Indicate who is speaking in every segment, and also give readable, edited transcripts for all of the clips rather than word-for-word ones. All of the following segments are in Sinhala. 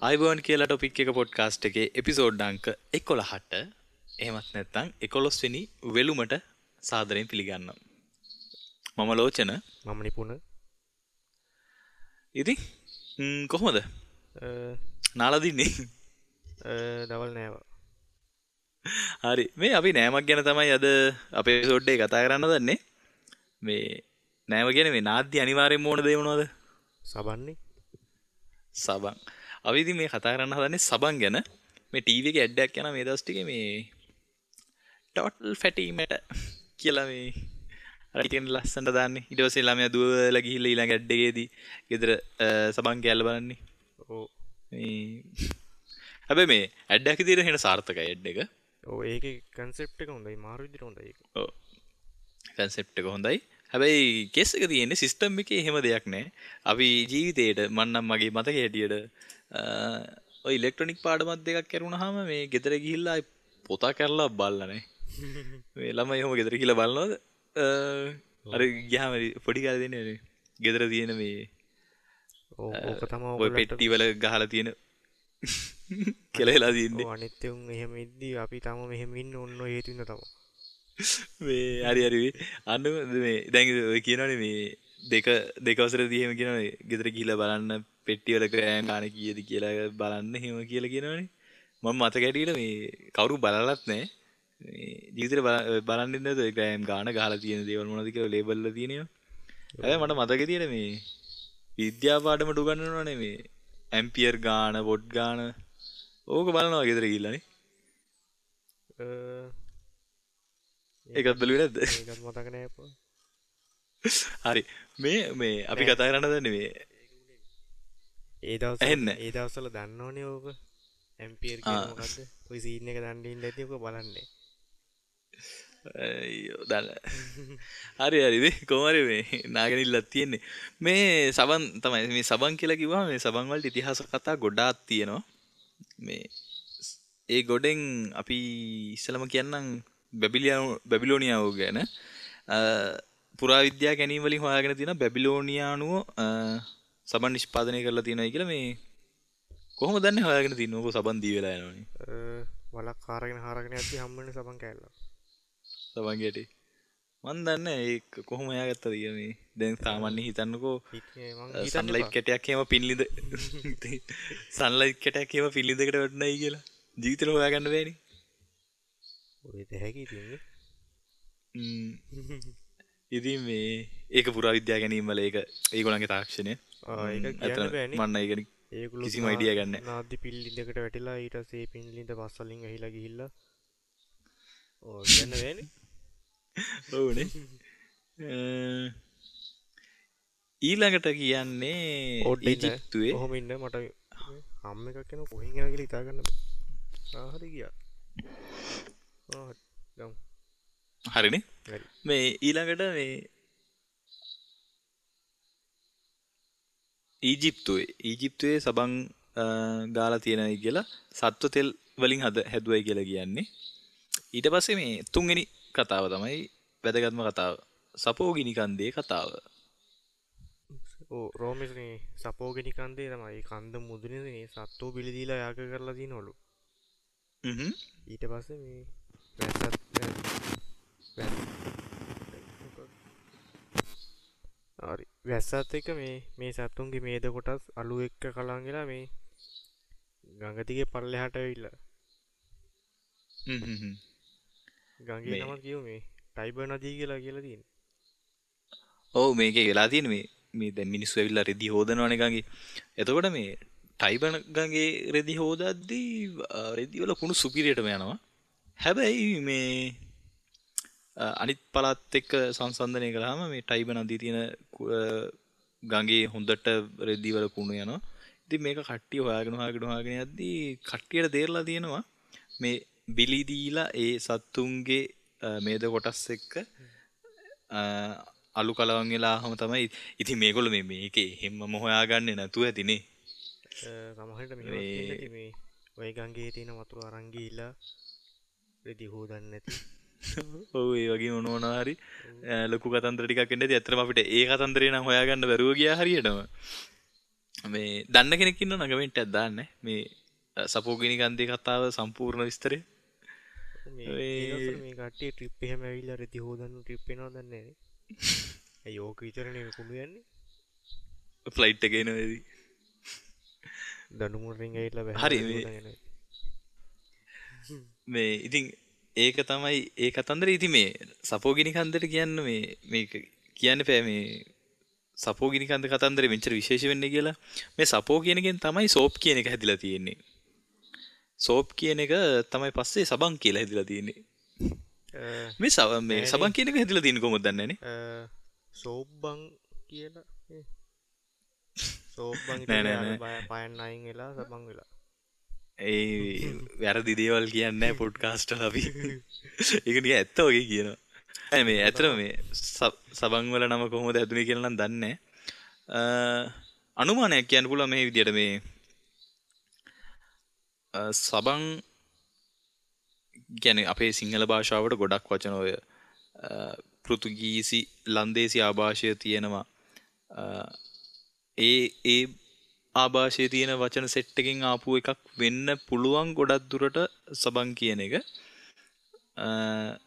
Speaker 1: ආයුබෝවන් කියලා ටොපික් එක පොඩ්කාස්ට් එකේ එපිසෝඩ් අංක 11ට එහෙමත් නැත්නම් 11 වෙනි වෙලුමට සාදරයෙන් පිළිගන්නවා. මම ලෝචන.
Speaker 2: මම නිපුණ.
Speaker 1: ඉතින් කොහොමද? නාලා දින්නේ?
Speaker 2: දවල් නෑවා.
Speaker 1: හරි. මේ අපි නෑමක් ගැන තමයි අද අපේ එපිසෝඩ් එකේ කතා කරන්න හදන්නේ. මේ නෑම කියන්නේ මේ නාද්‍ය අනිවාර්යෙන්ම ඕන දේ මොනවද?
Speaker 2: සබන්නේ.
Speaker 1: සබන්. අපි ඉතින් මේ කතා කරන්න හදන්නේ සබන් ගැන. මේ ටීවී එකේ ඇඩ් එකක් යනවා මේ දවස් ටිකේ මේ ටෝටල් ෆැටි මැට කියලා මේ අර කියන ලස්සනට දාන්නේ. ඊට පස්සේ ළමයා දුවලා ගිහිල්ලා ඊළඟ ඇඩ් එකේදී ගෙදර සබන් කෑල්ල බලන්නේ.
Speaker 2: ඔව්.
Speaker 1: මේ හැබැයි මේ ඇඩ් එකක් විදියට හෙන සාර්ථකයි ඇඩ් එක.
Speaker 2: ඔව්, ඒකේ කන්සෙප්ට් එක හොඳයි. මාරු විදියට හොඳයි ඒක.
Speaker 1: ඔව්. කන්සෙප්ට් එක හොඳයි. හැබැයි කේස් එක තියෙන්නේ සිස්ටම් එකේ එහෙම දෙයක් නෑ. අපි ජීවිතේට මං නම් මගේ මතකයේ හැටියට ඔය ඉලෙක්ට්‍රොනික පාඩමක් දෙකක් කරුණාම මේ ගෙදර ගිහිල්ලා ආයි පොතා කරලා බලලා නෑ. මේ ළමයි එහෙම ගෙදර ගිහිල්ලා බලනවද? අර ගියාම පොඩි කාලේ දෙන්නේ නේ ගෙදර තියෙන මේ
Speaker 2: ඔව්, ඕක තමයි
Speaker 1: ඔය
Speaker 2: ඔයගොල්ලන්ට
Speaker 1: පෙට්ටි වල ගහලා තියෙන කෙලෙලා තියෙන්නේ.
Speaker 2: ඔව්, අනිත් උන් එහෙම ඉද්දි අපි තාම මෙහෙම ඉන්න ඔන්න ඔය හේතු හින්දා තමයි.
Speaker 1: මේ හරි හරි අන්න මේ දැන් ඔය කියනවනේ මේ දෙක දෙක වසරේදී එහෙම කියනවනේ ගෙදර ගිහිල්ලා බලන්න පෙට්ටි වල ග්‍රෑම් ගාන කීයද කියලා බලන්න එහෙම කියලා කියනවනේ. මම මතක හැටියට මේ කවුරු බලලත් නෑ. මේ ජීවිතේ බලන්නේ නැතුව ඔය ග්‍රෑම් ගාන ගහලා තියෙන දේවල් මොනවද කියලා ලේබල් වල තියෙන ඒවා. හැබැයි මට මතක තියෙන මේ විද්‍යා පාඩමට උගන්වනවනේ මේ ඇම්පියර් ගාන වොට් ගාන ඕක බලනවා ගෙදර ගිහිල්ලා නේ. ඒකත් බැලුවේ නැද්ද?
Speaker 2: ඒකත් මතක නෑ අප්පා.
Speaker 1: හරි. මේ මේ අපි කතා කරන්න හදන්නේ මේ
Speaker 2: ඒ දවස්වල
Speaker 1: ඇහෙන්නේ
Speaker 2: ඒ දවස්වල දන්නවනේ ඕක. ඇම්පියර් කියන්නේ මොකද්ද? ඔය සීන් එක දන්නේ ඉන්න ඇති ඔක බලන්නේ.
Speaker 1: අයියෝ දන්න. හරි හරි මේ කොහොම හරි මේ නාගනිල්ලක් තියෙන්නේ. මේ සබන් තමයි මේ සබන් කියලා කිව්වම මේ සබන් වලට ඉතිහාස කතා ගොඩාක් තියෙනවා. මේ ඒ ගොඩෙන් අපි ඉස්සලම කියන්නම් බැබිලෝනියාව ගැන. පුරාවිද්‍යා ගැනීම වලින් හොයාගෙන තියෙනවා බැබිලෝනියානුව සබන් නිෂ්පාදනය කරලා තියෙනවායි කියලා. මේ කොහොමද දන්නේ හොයාගෙන තියෙන්නේ? ඕක සබන් දී වෙලා යනවනේ.
Speaker 2: වලක් හාරගෙන හාරගෙන යද්දි හම්බ වෙන සබන් කෑල්ල.
Speaker 1: සබන් ගැටේ. මන් දන්නේ ඒක කොහොම හොයාගත්තද කියලා. මේ දැන් සාමාන්‍යයෙන් හිතන්නකෝ සන්ලයිට් කැටයක් එහෙම පින්ලිඳ සන්ලයිට් කැටයක් එහෙම පින්ලිඳකට වැටුණයි කියලා ජීවිතේට හොයාගන්න බෑනේ.
Speaker 2: ඔය දෙහැකි ඉතින්.
Speaker 1: ඉතින් මේ ඒක පුරාවිද්‍යා ගැනීම වල ඒක ඒගොල්ලන්ගේ තාක්ෂණය.
Speaker 2: ඒක කියන්න බෑනේ.
Speaker 1: මන් ඒක
Speaker 2: ඒගොල්ලෝ
Speaker 1: කිසිම අයිඩියා ගන්න නෑ.
Speaker 2: නාද්දි පිල්ලිඳකට වැටිලා ඊට පස්සේ ඒ පිල්ලිඳ පස් වලින් ඇහිලා ගිහිල්ලා ඔව් කියන්න බෑනේ.
Speaker 1: ඔව්නේ. ඊළඟට කියන්නේ ඊජිප්තුවේ.
Speaker 2: ඔහොම ඉන්න මට හම් එකක් එනවා කොහෙන් එනවා කියලා හිතා ගන්න බෑ. ආ හරි ගියා. ආ හරි ගමු.
Speaker 1: හරිනේ.
Speaker 2: හරි.
Speaker 1: මේ ඊළඟට මේ ඊජිප්තුවේ සබන් ගාලා තියෙනයි කියලා සත්ව තෙල් වලින් හැදුවයි කියලා කියන්නේ. ඊට පස්සේ මේ තුන්වෙනි කතාව තමයි වැදගත්ම කතාව. සපෝගිනි කන්දේ කතාව.
Speaker 2: ඔව්, රෝමේ මේ සපෝගිනි කන්දේ තමයි ඒ කන්ද මුදුනේ මේ සත්වෝ බිලි දීලා යාග කරලා තියෙනවලු. ඊට පස්සේ මේ හරි වැස්සත් එක්ක මේ මේ සත්තුන්ගේ මේද කොටස් අලු එක්ක කලවම් වෙලා මේ ගඟ දිගේ පල්ලෙහාට ඇවිල්ලා. ගඟේ නම කියමු මේ ටයිබර් නදිය කියලා කියලා තියෙන්නේ.
Speaker 1: ඔව්, මේකේ වෙලා තියෙන්නේ මේ මේ දැන් මිනිස්සු ඇවිල්ලා රෙදි හොදනවනේ ගඟේ. එතකොට මේ ටයිබර් ගඟේ රෙදි හොදද්දී රෙදි වල කුණු සුපිරියටම යනවා. හැබැයි මේ අනිත් පළාත් එක්ක සංසන්දනය කළාම මේ ටයිබර් නදියේ තියෙන ගඟේ හොඳට රෙදි වල කුණු යනවා. ඉතින් මේක කට්ටිය හොයාගෙන හොයාගෙන හොයාගෙන යද්දී කට්ටියට තේරලා තියෙනවා මේ බිලි දීලා ඒ සත්තුන්ගේ මේද කොටස් එක්ක අලු කලවම් වෙලා ආවම තමයි. ඉතින් මේගොල්ලෝ මේ මේකේ එහෙම්මම හොයාගන්නේ නැතුව ඇතිනේ.
Speaker 2: සමහරවිට මෙහෙම තියෙන්නේ මේ ඔය ගඟේ තියෙන වතුර අරන් ගිහිල්ලා රෙදි හොදන්නේ නැති.
Speaker 1: ඔව්, ඒ වගේ මොන මොනවා හරි ලොකු කතන්දර ටිකක් එන්න ඇති. ඇත්තටම අපිට ඒ කතන්දරේ නම් හොයාගන්න බැරුව ගියා හරියටම. මේ දන්න කෙනෙක් ඉන්නව නම් කමෙන්ට් එකක් දාන්න මේ සපෝගිනි කන්දේ කතාව සම්පූර්ණ විස්තරය.
Speaker 2: මේ මේ කට්ටිය ට්‍රිප් එහෙම ඇවිල්ලා රෙදි හොදන්න ට්‍රිප් එනවා දන්නේ නෑනේ. ඇයි ඕක විතරනේ මේ කුණු යන්නේ.
Speaker 1: ෆ්ලයිට් එකේ එනවා ඉතින්.
Speaker 2: දඬු මුරෙන් ඇවිල්ලා බැහැ.
Speaker 1: හරි මේ ඉතින් ඒක තමයි ඒ කතන්දරේ. ඉතින් මේ සපෝගිනි කන්දට කියන්න මේ මේක කියන්න බෑ මේ සපෝගිනි කන්ද කතන්දරේ මෙච්චර විශේෂ වෙන්නේ කියලා. මේ සපෝ කියන එකෙන් තමයි සෝප් කියන එක හැදිලා තියෙන්නේ. සෝප් කියන එක තමයි පස්සේ සබන් කියලා හැදිලා තියෙන්නේ. මේ මේ සබන් කියන එක හැදිලා තියෙන්නේ කොහොමද දන්නේ නෑනේ.
Speaker 2: සෝප් බං කියලා. සෝප් බං ඉතින් පයන් අයින් වෙලා සබන් වෙලා.
Speaker 1: ඒ වැරදි දේවල් කියන්නේ නෑ පොඩ්කාස්ට් වල අපි. ඒක නිකන් ඇත්ත වගේ කියනවා. නෑ මේ ඇත්තටම මේ සබන් වල නම කොහොමද හැදුනේ කියලා නම් දන්නේ නෑ. අනුමානයක් කියන්න පුළුවන් මේ විදියට මේ සබන් කියන්නේ අපේ සිංහල භාෂාවට ගොඩක් වචන ඔය පෘතුගීසි ලන්දේසි ආభాෂය තියෙනවා. ඒ ඒ ආభాෂයේ තියෙන වචන සෙට් එකෙන් ආපු එකක් වෙන්න පුළුවන් ගොඩක් දුරට සබන් කියන එක.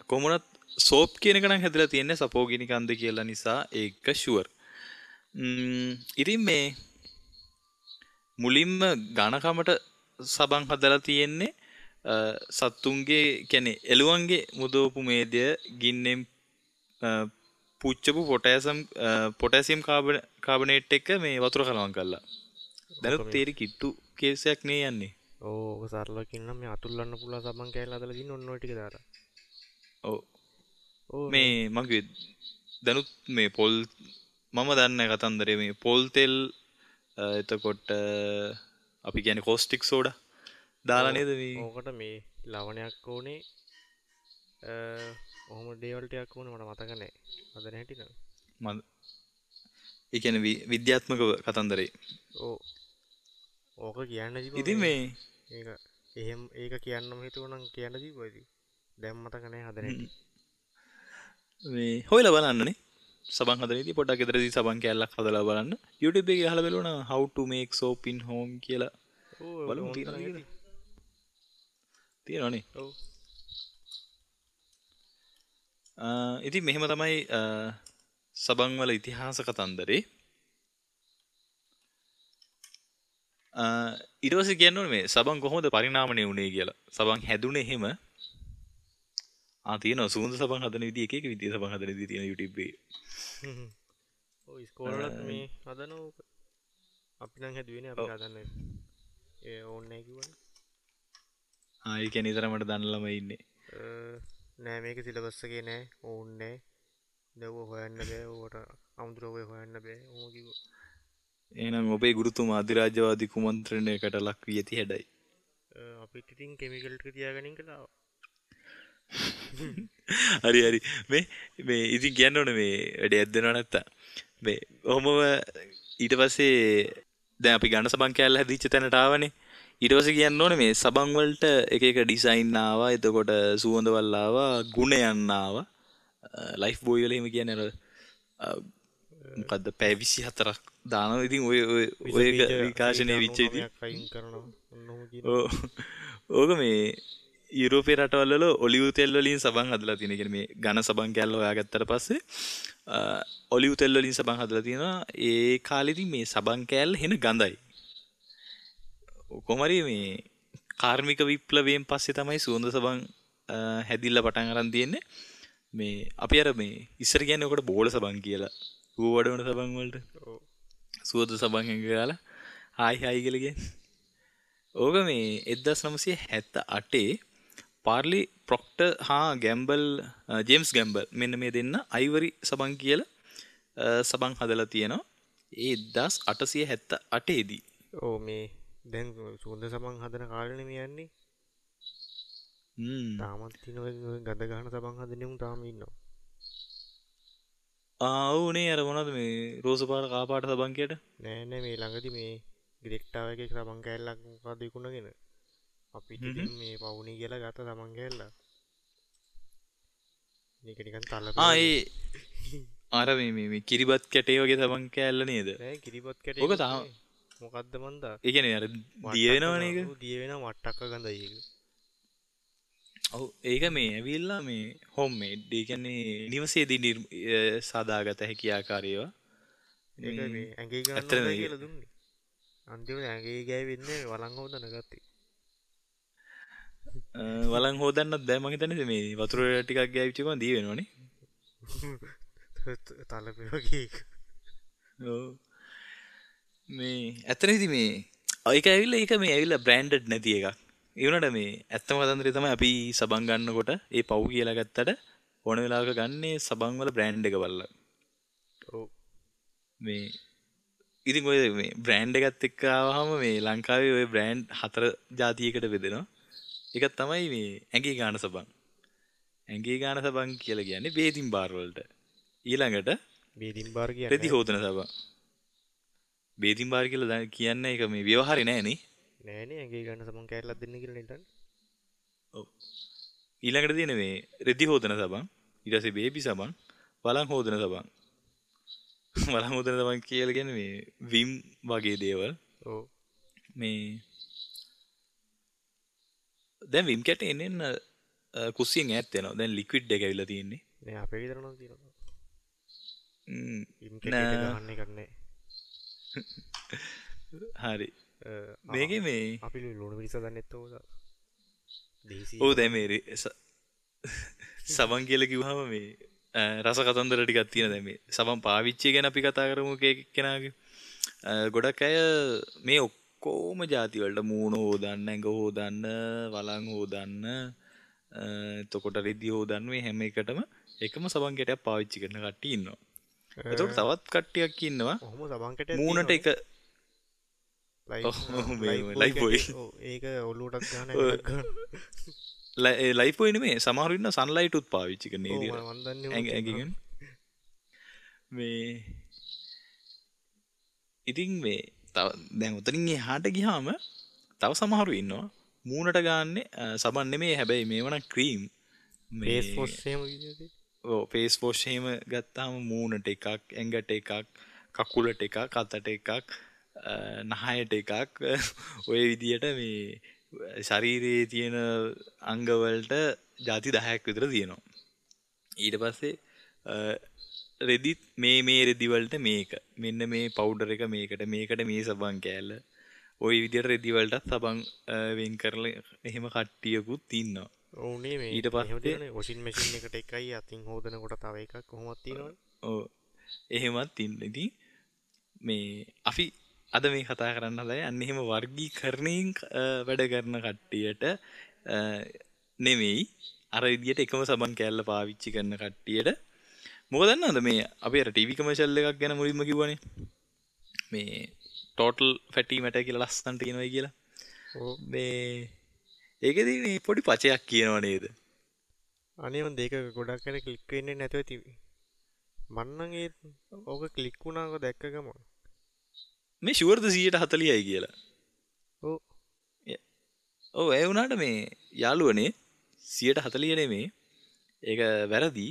Speaker 1: කොහොම වුණත් සෝප් කියන එක නම් හැදලා තියෙන්නේ සපෝගිනි කන්ද කියලා නිසා ඒක ෂුවර්. ඉතින් මේ මුලින්ම ඝනකමට සබන් හදලා තියෙන්නේ සත්තුන්ගේ කියන්නේ එළුවන්ගේ මුදවපු මේදය ගින්නෙන් පුච්චපු පොටෑසියම් කාබනේට් එක මේ වතුර කලවම් කරලා. දැනුත් තේරි කිට්ටු කේසයක් නේ යන්නේ.
Speaker 2: ඔව් ඔක සරලව කියනනම් මේ අතුල්ලන්න පුළුවන් සබන් කෑල්ල හදලා දින්න ඔන්න ඔය ටික දාලා.
Speaker 1: ඔව්. ඔව් මේ මං කිව්වේ දැනුත් මේ පොල් මම දන්නේ කතන්දරේ මේ පොල් තෙල් එතකොට අපි කියන්නේ කෝස්ටික් සෝඩා දාලා නේද මේ
Speaker 2: ඕකට මේ ලවණයක් ඕනේ ඔහොම දේවල් ටිකක් ඕනේ මට මතක නෑ හදන හැටි නම්.
Speaker 1: මම ඒ කියන්නේ විද්‍යාත්මක කතන්දරේ.
Speaker 2: ඔව් ඕක කියන්න තිබ්බා.
Speaker 1: ඉතින් මේ
Speaker 2: ඒක එහෙම ඒක කියන්නම හිතුවනම් කියන්න තිබ්බා ඉතින්. දැන් මතක නෑ හදන හැටි.
Speaker 1: මේ හොයලා බලන්නනේ. සබන් හදන විදිය පොඩ්ඩක් ගෙදරදී සබන් කෑල්ලක් හදලා බලන්න. YouTube එකේ ගහලා බලුවා නම් how to make soap in home කියලා.
Speaker 2: ඔව්
Speaker 1: බලමු තියෙනවද කියලා. තියෙනවනේ.
Speaker 2: ඔව්.
Speaker 1: ඉතින් මෙහෙම තමයි සබන් වල ඉතිහාස කතන්දරේ. ඊට පස්සේ කියන්න ඕනේ මේ සබන් කොහොමද පරිණාමණය වුනේ කියලා. සබන් හැදුනේ එහෙම. ආ තියෙනවා සුවඳ සබන් හදන විදිය එක එක විදිය සබන් හදන විදිය තියෙන YouTube එකේ.
Speaker 2: ඔව් ඉස්කෝලේ වලත් මේ හදන ඕක. අපි නම් හැදුවේ නේ අපි හදන්නේ. ඒ ඕනේ නැහැ කිව්වනේ.
Speaker 1: ආ ඒ කියන්නේ ඉතරමට දන්න ළමයි ඉන්නේ.
Speaker 2: නෑ මේක සිලබස් එකේ නෑ ඕනේ නෑ. දැන් ඔය හොයන්න බෑ ඕකට අමුතුව ඔය හොයන්න බෑ ඕම කිව්වා.
Speaker 1: එහෙනම් ඔබේ ගුරුතුමා අධිරාජ්‍යවාදී කුමන්ත්‍රණයකට ලක් වී ඇති හැඩයි.
Speaker 2: අපිත් ඉතින් කෙමිකල් ටික තියාගෙන ඉඳලා ආවා.
Speaker 1: හරි හරි මේ මේ ඉතින් කියන්න ඕනේ මේ වැඩේ ඇද්දෙනව නැත්තම් මේ ඔහොමම ඊට පස්සේ දැන් අපි ඝන සබන් කෑල්ල හැදිච්ච තැනට ආවනේ. ඊට පස්සේ කියන්න ඕනේ මේ සබන් වලට එක එක ඩිසයින් ආවා, එතකොට සුවඳවල් ආවා, ගුණයන් ආවා. ලයිෆ් බෝයි වල එහෙම කියන්නේ අර මොකද්ද පැය 24ක් දානවා. ඉතින් ඔය ඔය ඔය එක විකාශනය වෙච්ච ඉතින්
Speaker 2: අයින් කරනවා ඔන්න ඔහොම කියනවා.
Speaker 1: ඕක මේ යුරෝපයේ රටවල් වල ඔලිව් තෙල් වලින් සබන් හදලා තියෙන. ඒ කියන්නේ මේ ඝන සබන් කෑල්ල හොයාගත්තට පස්සේ ඔලිව් තෙල් වලින් සබන් හදලා තියෙනවා. ඒ කාලෙදී මේ සබන් කෑල්ල හෙන ගඳයි. කොහොම හරි මේ කාර්මික විප්ලවයෙන් පස්සේ තමයි සුවඳ සබන් හැදිලා පටන් අරන් තියෙන්නේ. මේ අපි අර මේ ඉස්සර කියන්නේ ඔකට බෝල සබන් කියලා. ඌ වඩවන සබන් වලට.
Speaker 2: ඔව්.
Speaker 1: සුවඳ සබන් එක ගාලා හායි හායි කියලා කියන්නේ. ඕක මේ 1978 පාර්ලි ප්‍රොක්ටර් හා ගැම්බල් ජේම්ස් ගැම්බල් මෙන්න මේ දෙන්න අයිවරි සබන් කියලා සබන් හදලා තියෙනවා. ඒ 1878 දී.
Speaker 2: ඔව් මේ දැන් සුවඳ සබන් හදන කාලෙනේ මේ යන්නේ. තාමත් තියෙන ඔය ගඳ ගහන සබන් හදන උන් තාම ඉන්නවා.
Speaker 1: ආ ඔව් නේ අර මොනවද මේ රෝස පාට කා පාට සබන් කියට?
Speaker 2: නෑ නෑ මේ ළඟදි මේ ග්‍රෙට්ටා වගේ සබන් කෑල්ලක් මොකද්ද විකුණගෙන අපිට ඉතින් මේ පවුනේ කියලා ගත්ත සබන් කෑල්ල. මේක නිකන් තලපේ.
Speaker 1: ආ ඒ අර මේ මේ මේ කිරිබත් කැටේ වගේ සබන් කෑල්ල නේද?
Speaker 2: නෑ කිරිබත් කැටේ.
Speaker 1: ඔක තාම
Speaker 2: මොකද්ද මන්දා?
Speaker 1: ඒ කියන්නේ අර දිය වෙනවනේ ඒක.
Speaker 2: ඔව් දිය වෙනවා වට්ටක්ක ගඳයි ඒක.
Speaker 1: ඔව් ඒක මේ ඇවිල්ලා මේ හෝම් මේඩ්. ඒ කියන්නේ නිවසේදී සාදාගත හැකි ආකාරය ඒවා.
Speaker 2: ඒක මේ ඇඟේ ගන්න හොඳයි කියලා දුන්නේ. අන්තිමට ඇඟේ ගෑවෙන්නේ වළං හොදන ගත්තේ.
Speaker 1: වළං හොදන්නත් බෑ මං හිතන්නේ මේ වතුර ටිකක් ගෑවිච්ච ගමන් දිය වෙනවනේ.
Speaker 2: තලපේ වගේ ඒක.
Speaker 1: ඔව්. මේ ඇත්තටම ඉතින් මේ ඒක ඇවිල්ලා ඒක මේ ඇවිල්ලා බ්‍රෑන්ඩඩ් නැති එකක්. ඒ වුණාට මේ ඇත්තම කතන්දරේ තමයි අපි සබන් ගන්නකොට ඒ පව් කියලා ගත්තට ඕන වෙලාවක ගන්නේ සබන් වල බ්‍රෑන්ඩ් එක බලලා.
Speaker 2: ඔව්.
Speaker 1: මේ ඉතින් ඔය මේ බ්‍රෑන්ඩ් එකත් එක්ක ආවහම මේ ලංකාවේ ඔය බ්‍රෑන්ඩ් හතර ජාතියකට බෙදෙනවා. එකක් තමයි මේ ඇඟේ ගාන සබන්. ඇඟේ ගාන සබන් කියලා කියන්නේ බේදින් බාර් වලට. ඊළඟට
Speaker 2: බේදින් බාර් කියන්නේ
Speaker 1: රෙදි හොදන සබන්. බේදින් බාර් කියලා කියන්නේ ඒක මේ ව්‍යවහාරේ නෑ නේ.
Speaker 2: නෑ නේ ඇඟේ ගන්න සබන් කෑල්ලක් දෙන්න කියලා නේද?
Speaker 1: ඔව්. ඊළඟට තියෙන මේ රෙදි හොදන සබන්, ඊට පස්සේ බේබි සබන්, වළං හොදන සබන්. වළං හොදන සබන් කියලා කියන්නේ මේ විම් වගේ දේවල්.
Speaker 2: ඔව්.
Speaker 1: මේ දැන් විම් කැට එන්න එන්න කුස්සියෙන් ඈත් වෙනවා. දැන් ලික්විඩ් එක ඇවිල්ලා තියෙන්නේ.
Speaker 2: නෑ අපේ ගෙදර නම් තියෙනවා. විම් කැට එක ගහන්න එකක් නෑ.
Speaker 1: හරි. මේකේ මේ
Speaker 2: අපි ලුණු මිරිස් හදන්නෙත් ඕක දේසි.
Speaker 1: ඔව් දැන් මේ සබන් කියලා කිව්වහම මේ රස කතන්දර ටිකක් තියෙන. දැන් මේ සබන් පාවිච්චිය ගැන අපි කතා කරමු කෙනාගේ. ගොඩක් අය මේ ඔක්කොම ජාති වලට මූණ හොදන්න, ඇඟ හොදන්න, වළං හොදන්න, එතකොට රෙදි හොදන්න මේ හැම එකටම එකම සබන් කැටයක් පාවිච්චි කරන කට්ටිය ඉන්නවා. එතකොට තවත් කට්ටියක් ඉන්නවා.
Speaker 2: ඔහොම සබන් කැටයක්
Speaker 1: මූණට එක ලයිෆ් බොයි.
Speaker 2: ඔව් ඒක ඔලුවටත් ගන්න ඇඟටත් ගන්න.
Speaker 1: ලයිෆ් බොයි නෙමෙයි සමහරු ඉන්නවා සන්ලයිට් උත් පාවිච්චි කරන ඒ විදියට.
Speaker 2: ඔව් මං දන්නේ
Speaker 1: ඇඟ මේ ඉතින් මේ තව දැන් උතනින් එහාට ගියාම තව සමහරු ඉන්නවා මූණට ගාන්නේ සබන් නෙමෙයි හැබැයි මේව නම් ක්‍රීම්.
Speaker 2: මේ ෆේස් වොෂ් එහෙම විදියට.
Speaker 1: ඔව් ෆේස් වොෂ් එහෙම ගත්තාම මූණට එකක්, ඇඟට එකක්, කකුලට එකක්, අතට එකක්, නහයට එකක් ඔය විදියට මේ ශරීරයේ තියෙන අංග වලට ජාති 10ක් විතර තියෙනවා. ඊට පස්සේ රෙදිත් මේ රෙදි වලට මේක, මෙන්න මේ පවුඩර් එක මේකට, මේකට මේ සබන් කෑල්ල, ඔය විදියට රෙදි වලටත් සබන් වෙන් කරලා එහෙම කට්ටියකුත් ඉන්නවා.
Speaker 2: ඔව් නේ මේ
Speaker 1: ඊට පස්සේ
Speaker 2: වොෂින් මැෂින් එකට එකයි අතින් හොදනකොට තව එකක් කොහොමද තියෙනවනේ.
Speaker 1: ඔව් එහෙමත් ඉන්න. ඉතින් මේ අපි අද මේ කතා කරන්න හදන්නේ අන්න එහෙම වර්ගීකරණයෙන් වැඩ කරන කට්ටියට නෙමෙයි, අර විදියට එකම සබන් කෑල්ල පාවිච්චි කරන කට්ටියට. මොකද දන්නවද මේ අපි අර ටීවී කමර්ෂල් එකක් ගැන මුලින්ම කිව්වනේ මේ ටෝටල් ෆැටි මැටර් කියලා ලස්සනට කියනවායි කියලා.
Speaker 2: ඔව්.
Speaker 1: මේ ඒකෙදි මේ පොඩි පචයක් කියනව නේද?
Speaker 2: අනේ මන් දෙක ගොඩක් අර ක්ලික් වෙන්නේ නැතුව තිබි. මං නම් ඒ ඕක ක්ලික් වුණාක දැක්ක ගමන්
Speaker 1: මේ ෂුවර්ද 140යි කියලා.
Speaker 2: ඔව්.
Speaker 1: ඔව් ඒ වුණාට මේ යාළුවනේ 140 නෙමෙයි. ඒක වැරදි.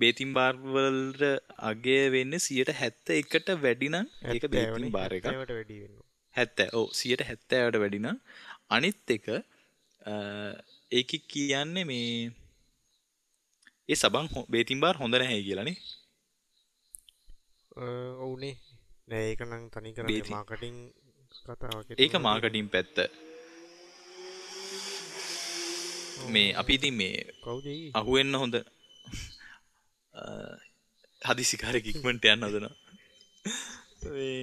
Speaker 1: බේතින් බාර් වලට අගය වෙන්නේ 171ට වැඩි නම් ඒක බේතින් බාර් එකක්.
Speaker 2: 70ට වැඩි වෙනවා.
Speaker 1: 70. ඔව් 170ට වැඩි නම් අනිත් එක ඒකේ කියන්නේ මේ ඒ සබන් බේතින් බාර් හොඳ නැහැ කියලා නේ.
Speaker 2: ඔව් නේ. නෑ ඒක නම් තනි කර මාකටිං කතාවක්.
Speaker 1: ඒක මාකටිං පැත්ත. මේ අපි ඉතින් මේ
Speaker 2: කවුද ඒ?
Speaker 1: අහුවෙන්න හොඳ හදිසිකාරයෙක් ඉක්මනට යන්න හදනවා. මේ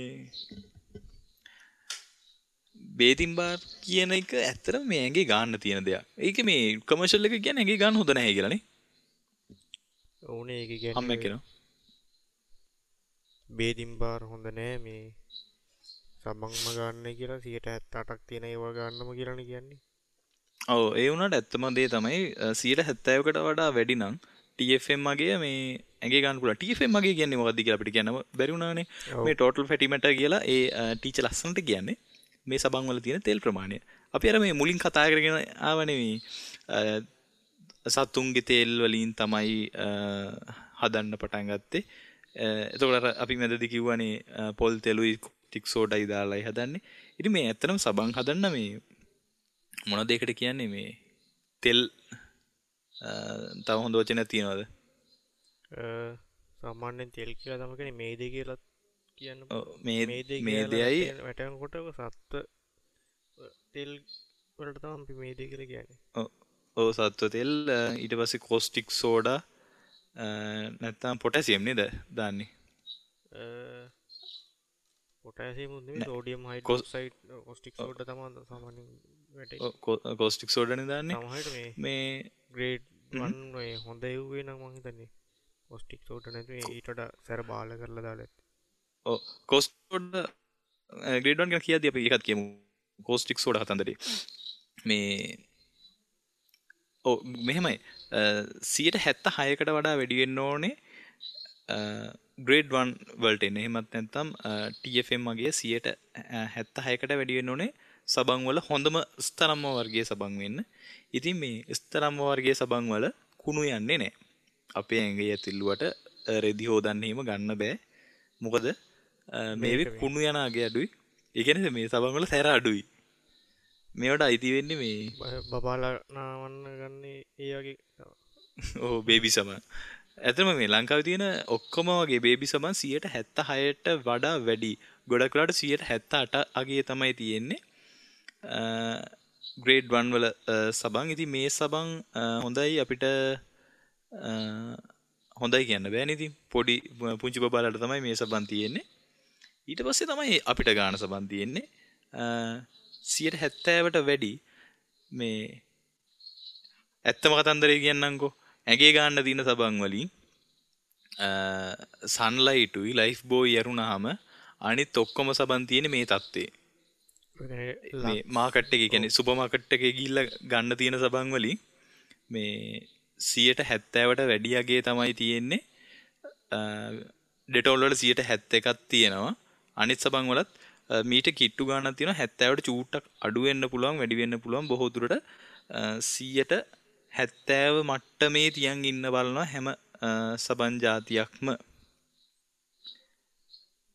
Speaker 1: බේතින් බාර් කියන එක ඇත්තටම මේ ඇඟේ ගන්න තියෙන දෙයක්. ඒක මේ කමර්ෂල් එක කියන්නේ ඇඟේ ගන්න හොඳ නැහැ කියලා නේ.
Speaker 2: ඔව් නේ ඒක කියන්නේ.
Speaker 1: අම්මා කියනවා.
Speaker 2: බේතින් බාර් හොඳ නෑ මේ සබන්ම ගන්න කියලා 178ක් තියෙන ඒවා ගන්නම කියලානේ කියන්නේ.
Speaker 1: ඔව් ඒ වුණාට ඇත්තම දේ තමයි 170කට වඩා වැඩි නම් TFM මගේ මේ ඇඟේ ගන්න පුළුවන්. TFM මගේ කියන්නේ මොකද්ද කියලා අපිට කියන්න බැරි වුණානේ. මේ ටෝටල් ෆැටි මැටර් කියලා ඒ ටීචර් ලස්සනට කියන්නේ මේ සබන් වල තියෙන තෙල් ප්‍රමාණය. අපි අර මේ මුලින් කතා කරගෙන ආවනේ මේ සතුන්ගේ තෙල් වලින් තමයි හදන්න පටන් ගත්තේ. එතකොට අර අපි මැදදී කිව්වනේ පොල් තෙලුයි කෝස්ටික් සෝඩායි දාලායි හදන්නේ. ඉතින් මේ ඇත්තටම සබන් හදන්න මේ මොනවද ඒකට කියන්නේ මේ තෙල් තව හොඳ වචනයක් තියනවද?
Speaker 2: සාමාන්‍යයෙන් තෙල් කියලා තමයි කියන්නේ, මේදේ කියලා කියන්න.
Speaker 1: ඔව්, මේ මේදෙයි
Speaker 2: වැටෙනකොට සත්ව තෙල් වලට තමයි අපි මේදේ කියලා කියන්නේ.
Speaker 1: ඔව් ඔව්, සත්ව තෙල්, ඊට පස්සේ කෝස්ටික් සෝඩා නැත්තම් පොටෑසියම් නේද දාන්නේ?
Speaker 2: පොටෑසියම් නෙමෙයි, සෝඩියම් හයිඩ්‍රොක්සයිඩ්, කෝස්ටික් සෝඩා තමයි සාමාන්‍යයෙන් වැටෙන්නේ.
Speaker 1: ඔව්, කෝස්ටික් සෝඩානේ දාන්නේ.
Speaker 2: සමහරවිට මේ
Speaker 1: මේ
Speaker 2: ග්‍රේඩ් 1 ඔය හොඳ එව්වේ නම් මං හිතන්නේ කෝස්ටික් සෝඩා නැතුව ඊට වඩා සැර බාල කරලා දාලා ඇති.
Speaker 1: ඔව්, කෝස්ටික් සෝඩා ග්‍රේඩ් 1 ගැන කියද්දී අපි ඒකත් කියමු. කෝස්ටික් සෝඩා කතන්දරේ මේ ඔව් මෙහෙමයි, 76කට වඩා වැඩි වෙන්න ඕනේ ග්‍රේඩ් 1 වලට එන්න. එහෙමත් නැත්නම් TFM වගේ 76කට වැඩි වෙන්න ඕනේ සබන් වල හොඳම ස්තරම්ම වර්ගයේ සබන් වෙන්න. ඉතින් මේ ස්තරම්ම වර්ගයේ සබන් වල කුණු යන්නේ නැහැ. අපේ ඇඟේ ඇතිල්ලුවට රෙදි හොදන්න එහෙම ගන්න බෑ. මොකද මේවේ කුණු යන අගය අඩුයි. ඒ කියන්නේ මේ සබන් වල සැර අඩුයි. මේවට අයිති වෙන්නේ මේ
Speaker 2: බබාලා නාවන්න ගන්නේ ඒ වගේ.
Speaker 1: ඔව්, බේබි සබන්. ඇත්තටම මේ ලංකාවේ තියෙන ඔක්කොම වගේ බේබි සබන් 76ට වඩා වැඩි. ගොඩක් වෙලාවට 78 අගය තමයි තියෙන්නේ ග්‍රේඩ් 1 වල සබන්. ඉතින් මේ සබන් හොඳයි අපිට, හොඳයි කියන්න බෑනේ. ඉතින් පොඩි පුංචි බබාලාට තමයි මේ සබන් තියෙන්නේ. ඊට පස්සේ තමයි අපිට ගාන සබන් තියෙන්නේ. 70ට වැඩි. මේ ඇත්තම කතන්දරේ කියන්නම්කෝ, ඇඟේ ගන්න තියෙන සබන් වලින් සන්ලයිට් උයි ලයිෆ් බෝයි ඇරුණාම අනිත් ඔක්කොම සබන් තියෙන්නේ මේ තත්ත්වේ. මේ මාකට් එකේ, කියන්නේ සුපර් මාකට් එකේ ගිහිල්ලා ගන්න තියෙන සබන් වලින් මේ 70ට වැඩි අගේ තමයි තියෙන්නේ. ඩෙටෝල් වල 71ක් තියෙනවා. අනිත් සබන් වලත් මීට කිට්ටු ගාණක් තියෙනවා. 70ට චූට්ටක් අඩු වෙන්න පුළුවන්, වැඩි වෙන්න පුළුවන්. බොහෝ දුරට 70 මට්ටමේ තියන් ඉන්න බලනවා හැම සබන් ජාතියක්ම.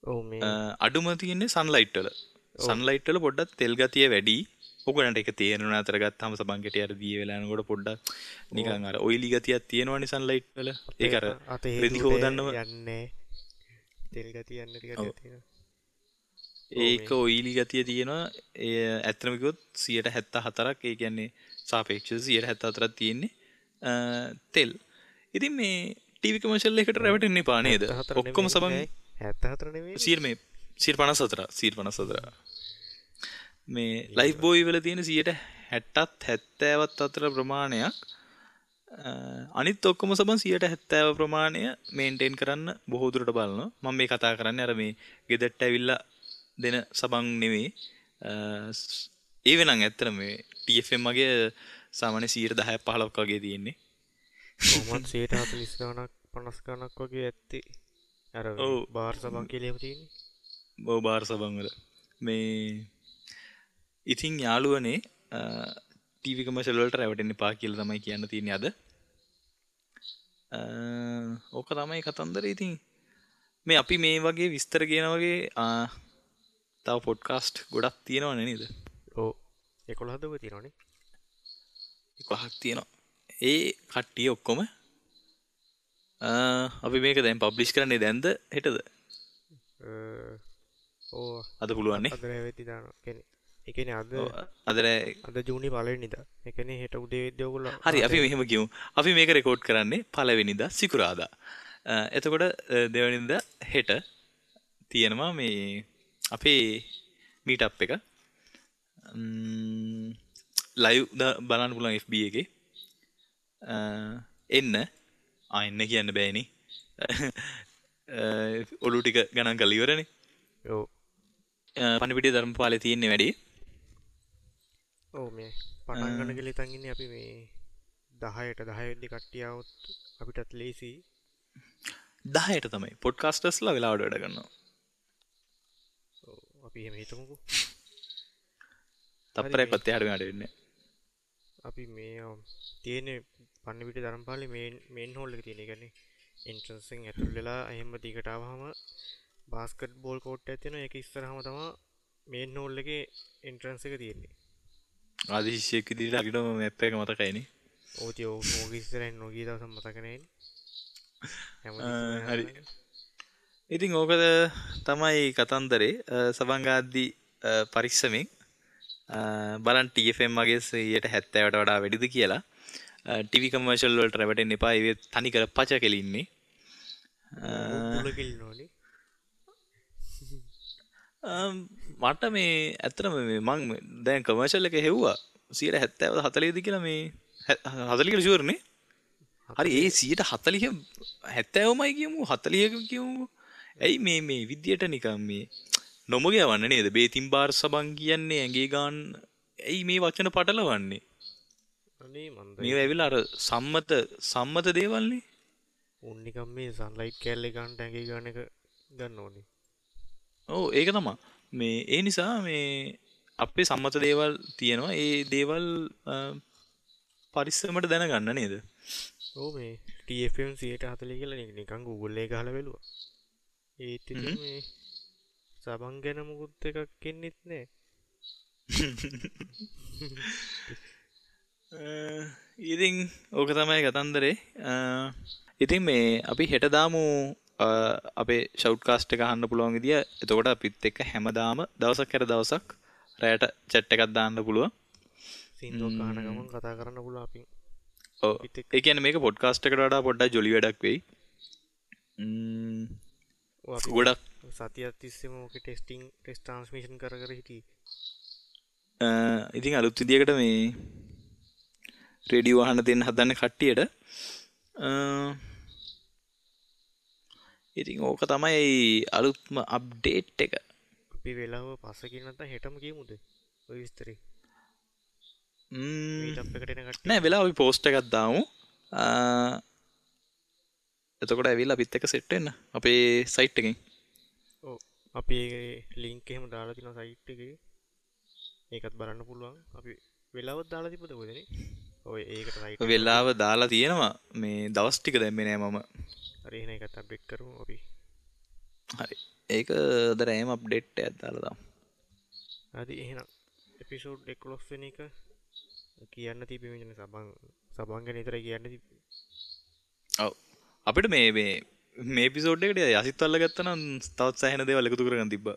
Speaker 2: ඔව්, මේ
Speaker 1: අඩුම තියෙන්නේ සන්ලයිට් වල. සන්ලයිට් වල පොඩ්ඩක් තෙල් ගතිය වැඩි. ඔයගොල්ලන්ට ඒක තේරෙනවා අතර ගත්තාම සබන් කෙටි අර දිය වෙලා යනකොට පොඩ්ඩක් නිකන් අර ඔයිලි ගතියක් තියෙනවනේ සන්ලයිට් වල. ඒක අර රෙදි හොදන්නම
Speaker 2: යන්නේ තෙල් ගතිය යන්නේ ටිකක් තියෙනවා.
Speaker 1: ඒක ඔයිලි ගතිය තියෙනවා. ඒ ඇත්තටම කිව්වොත් 74ක්, ඒ කියන්නේ සාපේක්ෂව 74ක් තියෙන්නේ තෙල්. ඉතින් මේ ටීවී කමර්ෂල් එකට රැවටෙන්න එපා නේද? ඔක්කොම සබන්
Speaker 2: 74 නෙමෙයි,
Speaker 1: 154 154. මේ ලයිෆ් බෝයි වල තියෙන 60ත් 70ත් අතර ප්‍රමාණයක්. අනිත් ඔක්කොම සබන් 70 ප්‍රමාණය මේන්ටේන් කරන්න බොහෝ දුරට බලනවා. මම මේ කතා කරන්නේ අර මේ ගෙදරට ඇවිල්ලා දෙන සබන් නෙමෙයි. ඒ වෙනන් ඇත්තටම මේ TFM වගේ සාමාන්‍ය 10ක් 15ක් වගේ තියෙන්නේ.
Speaker 2: කොහොමද 140 ගණක් 50 ගණක් වගේ ඇත්තේ. අර බාර් සබන් කියලා එහෙම තියෙන්නේ.
Speaker 1: ඔව්, බාර් සබන් වල. මේ ඉතින් යාළුවනේ ටීවී කමර්ෂල් වලට රැවටෙන්න එපා කියලා තමයි කියන්න තියෙන්නේ අද. ඕක තමයි කතන්දරේ. ඉතින් මේ අපි මේ වගේ විස්තර කියන වගේ තව පොඩ්කාස්ට් ගොඩක් තියෙනවනේ නේද?
Speaker 2: ඔව්, 11ක් ඔය තියෙනවනේ.
Speaker 1: 11ක් තියෙනවා. ඒ කට්ටිය ඔක්කොම අපි මේක දැන් පබ්ලිෂ් කරන්නේ දැන්ද හෙටද?
Speaker 2: ඔව්,
Speaker 1: අද පුළුවන් නේ.
Speaker 2: අද රෑ වෙද්දි දානවා. ඒ කියන්නේ අද
Speaker 1: අද රෑ,
Speaker 2: අද ජූනි පළවෙනිදා. ඒ කියන්නේ හෙට උදේ වෙද්දි ඔයගොල්ලෝ
Speaker 1: හරි, අපි මෙහෙම කියමු. අපි මේක රෙකෝඩ් කරන්නේ පළවෙනිදා සිකුරාදා. එතකොට දෙවෙනිදා හෙට තියෙනවා මේ අපේ මීට් අප් එක. ලයිව් බලන්න පුළුවන් FB එකේ. එන්න. එන්න කියන්න බෑනේ. ඔලු ටික ගණන් කරලා ඉවරනේ.
Speaker 2: ඔව්.
Speaker 1: පණිවිඩය ධර්මපාලේ තියෙන්නේ වැඩි.
Speaker 2: ඔව්, මේ පටන් ගන්න කියලා හිතන් ඉන්නේ අපි මේ 10ට 10 වෙද්දි කට්ටිය આવොත් අපිටත් ලේසි.
Speaker 1: 10ට තමයි පොඩ්කාස්ටර්ස්ලා වෙලාවට වැඩ කරනවා.
Speaker 2: ඔව්, අපි එහෙම හිතමුකෝ.
Speaker 1: තප්පරයක්වත් එහාට මෙහාට වෙන්නේ නැහැ.
Speaker 2: අපි මේ තියෙන්නේ පණිවිඩ ධර්මපාලේ මේන් හෝල් එක තියෙන. ඒ කියන්නේ එන්ට්‍රන්ස් එකෙන් ඇතුල් වෙලා එහෙම දිගට ආවහම බාස්කට් බෝල් කෝට් එකක් තියෙනවා. ඒක ඉස්සරහම තමයි මේන් හෝල් එකේ එන්ට්‍රන්ස් එක තියෙන්නේ.
Speaker 1: ආදි ශිෂ්‍යයෙක් විදිහට හරියටම මැප් එක මතකයිනේ.
Speaker 2: ඔව් ඉතින් ඕක ඉස්සරහින් නොගිය දවසක් මතක නෑනේ.
Speaker 1: හරි. ඉතින් ඕක තමයි කතන්දරේ. සබන් ගාද්දි පරිස්සමෙන් බලන්න TFM වගේ 70ට වඩා වැඩිද කියලා. ටීවී කමර්ෂල් වලට රැවටෙන්න එපා. ඒ තනිකර පච කෙලින්නේ.
Speaker 2: පුල කෙලිනෝනේ.
Speaker 1: මට මේ ඇත්තටම මේ මං දැන් කමර්ෂල් එක හෙව්වා 70ද 40ද කියලා මේ 40 කියලා ෂුවර් නේ. හරි ඒ 140 70මයි කියමු 40 කියමු. ඇයි මේ මේ විදියට නිකන් මේ නොමග යවන්න නේද? බේතින් බාර් සබන් කියන්නේ ඇඟේ ගාන ඇයි මේ වචන පටලවන්නේ?
Speaker 2: අනේ මන්ද
Speaker 1: මේවා ඇවිල්ලා අර සම්මත දේවල්නේ.
Speaker 2: උන් නිකන් මේ සන්ලයිට් කෑල්ලේ ගන්න ඇඟේ ගාන එක ගන්න ඕනේ.
Speaker 1: ඔව් ඒක තමයි. මේ ඒ නිසා මේ අපේ සම්මත දේවල් තියෙනවා. ඒ දේවල් පරිස්සමට දැනගන්න නේද?
Speaker 2: ඔව් මේ TFM 140 කියලා නිකන් Google එකේ ගහලා බැලුවා. ඒත් ඉතින් මේ සබන් ගැන මොකුත් එකක් එන්නෙත් නෑ.
Speaker 1: ඉතින් ඕක තමයි කතන්දරේ. ඉතින් මේ අපි හෙට දාමු අපේ ෂවුට් කාස්ට් එක අහන්න පුළුවන් විදිය. එතකොට අපිත් එක්ක හැමදාම දවසක් හැර දවසක් රැයට චැට් එකක් දාන්න පුළුවන්.
Speaker 2: සින්දුවක් අහන ගමන් කතා කරන්න පුළුවන් අපි.
Speaker 1: ඔව්. ඒ කියන්නේ මේක පොඩ්කාස්ට් එකට වඩා පොඩ්ඩක් ජොලි වැඩක් වෙයි. ගොඩක්
Speaker 2: සතියක් තිස්සේම ඕකේ ටෙස්ටිං ටෙස්ට් ට්‍රාන්ස්මිෂන් කර කර හිටියේ.
Speaker 1: ඉතින් අලුත් විදියකට මේ රේඩියෝ අහන්න දෙන්න හදන්න කට්ටියට. ඉතින් ඕක තමයි අලුත්ම අප්ඩේට් එක.
Speaker 2: අපි වෙලාව පස්සේ කියන නැත්නම් හෙටම කියමුද ඔය විස්තරේ? මීට් එකට එන කට්ටිය
Speaker 1: නෑ වෙලාව අපි පෝස්ට් එකක් දාමු. එතකොට ඇවිල්ලා අපිත් එක්ක සෙට් වෙන්න අපේ සයිට් එකෙන්.
Speaker 2: ඔව් අපි ඒ ලින්ක් එහෙම දාලා තිනවා සයිට් එකේ. ඒකත් බලන්න පුළුවන්. අපි වෙලාවත් දාලා තිබ්බද කොහෙද නේ? ඔය ඒකට සයිට්
Speaker 1: වෙලාව දාලා තියෙනවා. මේ දවස් ටික දැම්මේ නෑ මම.
Speaker 2: හරි එහෙනම් ඒකත් අප්ඩේට් කරමු අපි.
Speaker 1: හරි. ඒක අද රෑම අප්ඩේට් එකක් දාලා දාමු.
Speaker 2: හරි එහෙනම් එපිසෝඩ් 11 වෙනි එක කියන්න තිබ්බේ මේ සබන් ගැන විතරයි කියන්න තිබ්බේ.
Speaker 1: ඔව්. අපිට මේ මේ මේ එපිසෝඩ් එකට යසිත් අල්ලගත්තා නම් තවත් සෑහෙන දේවල් එකතු කරගන්න තිබ්බා.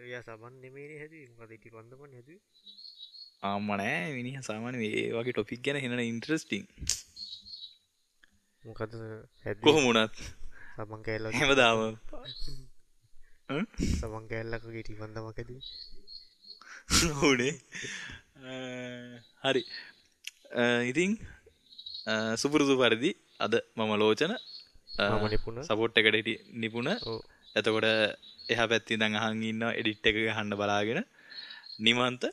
Speaker 2: එයා සබන් නෙමෙයිනේ හැදුවේ. මොකද ඉටි පන්දමනේ හැදුවේ.
Speaker 1: අම්මා නෑ මිනිහා සාමාන්‍ය මේ වගේ ටොපික් ගැන හිනන ඉන්ටරෙස්ටිං.
Speaker 2: මොකද හැදුවේ?
Speaker 1: කොහොම වුණත්
Speaker 2: සබන් කෑල්ලක්
Speaker 1: හැමදාම
Speaker 2: සබන් කෑල්ලක් වගේ ඉටි පන්දමක් හැදුවේ.
Speaker 1: ඔව්නේ. හරි. ඉතින් සුපුරුදු පරිදි අද මම ලෝචන,
Speaker 2: මම නිපුණ,
Speaker 1: සපෝට් එකට හිටි නිපුණ. එතකොට එහා පැත්තේ ඉඳන් අහන් ඉන්නවා එඩිට් එක ගහන්න බලාගෙන නිමන්ත.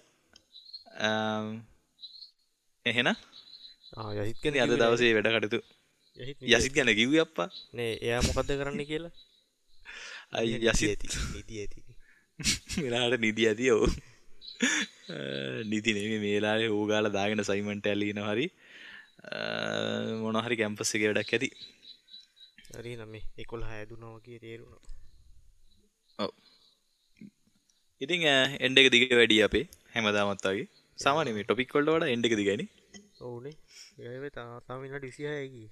Speaker 1: එහෙනම්
Speaker 2: යසිත් ගැන
Speaker 1: අද දවසේ වැඩ කටයුතු යසිත් ගැන කිව්වේ අප්පා
Speaker 2: නේ. එයා මොකද්ද කරන්න කියලා?
Speaker 1: අයි යසිත්
Speaker 2: නිදි ඇති.
Speaker 1: වෙලාවට නිදි ඇති. ඔව් නිදි නෙමෙයි මේ වෙලාවේ ඌ ගාලා දාගෙන අසයින්මන්ට් එකක් ලියනවා හරි මොන හරි කැම්පස් එකේ වැඩක් ඇති.
Speaker 2: හරි නම් මේ 11 හැදුනා වගේ තේරුණා.
Speaker 1: ඔව්. ඉතින් එන්ඩ් එක දිග වැඩි අපේ හැමදාමත් වගේ. සාමාන්‍ය මේ ටොපික් වලට වඩා එන්ඩ් එක දිගයිනේ.
Speaker 2: ඔව්නේ. ඒ තාම විනාඩි 26යි ගියේ.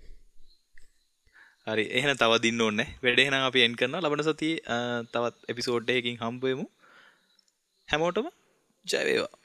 Speaker 1: හරි එහෙනම් තව දින්න ඕනේ නැහැ. වැඩ එහෙනම් අපි එන්ඩ් කරනවා. ලබන සතියේ තවත් එපිසෝඩ් එකකින් හම්බ වෙමු. හැමෝටම ජය වේවා.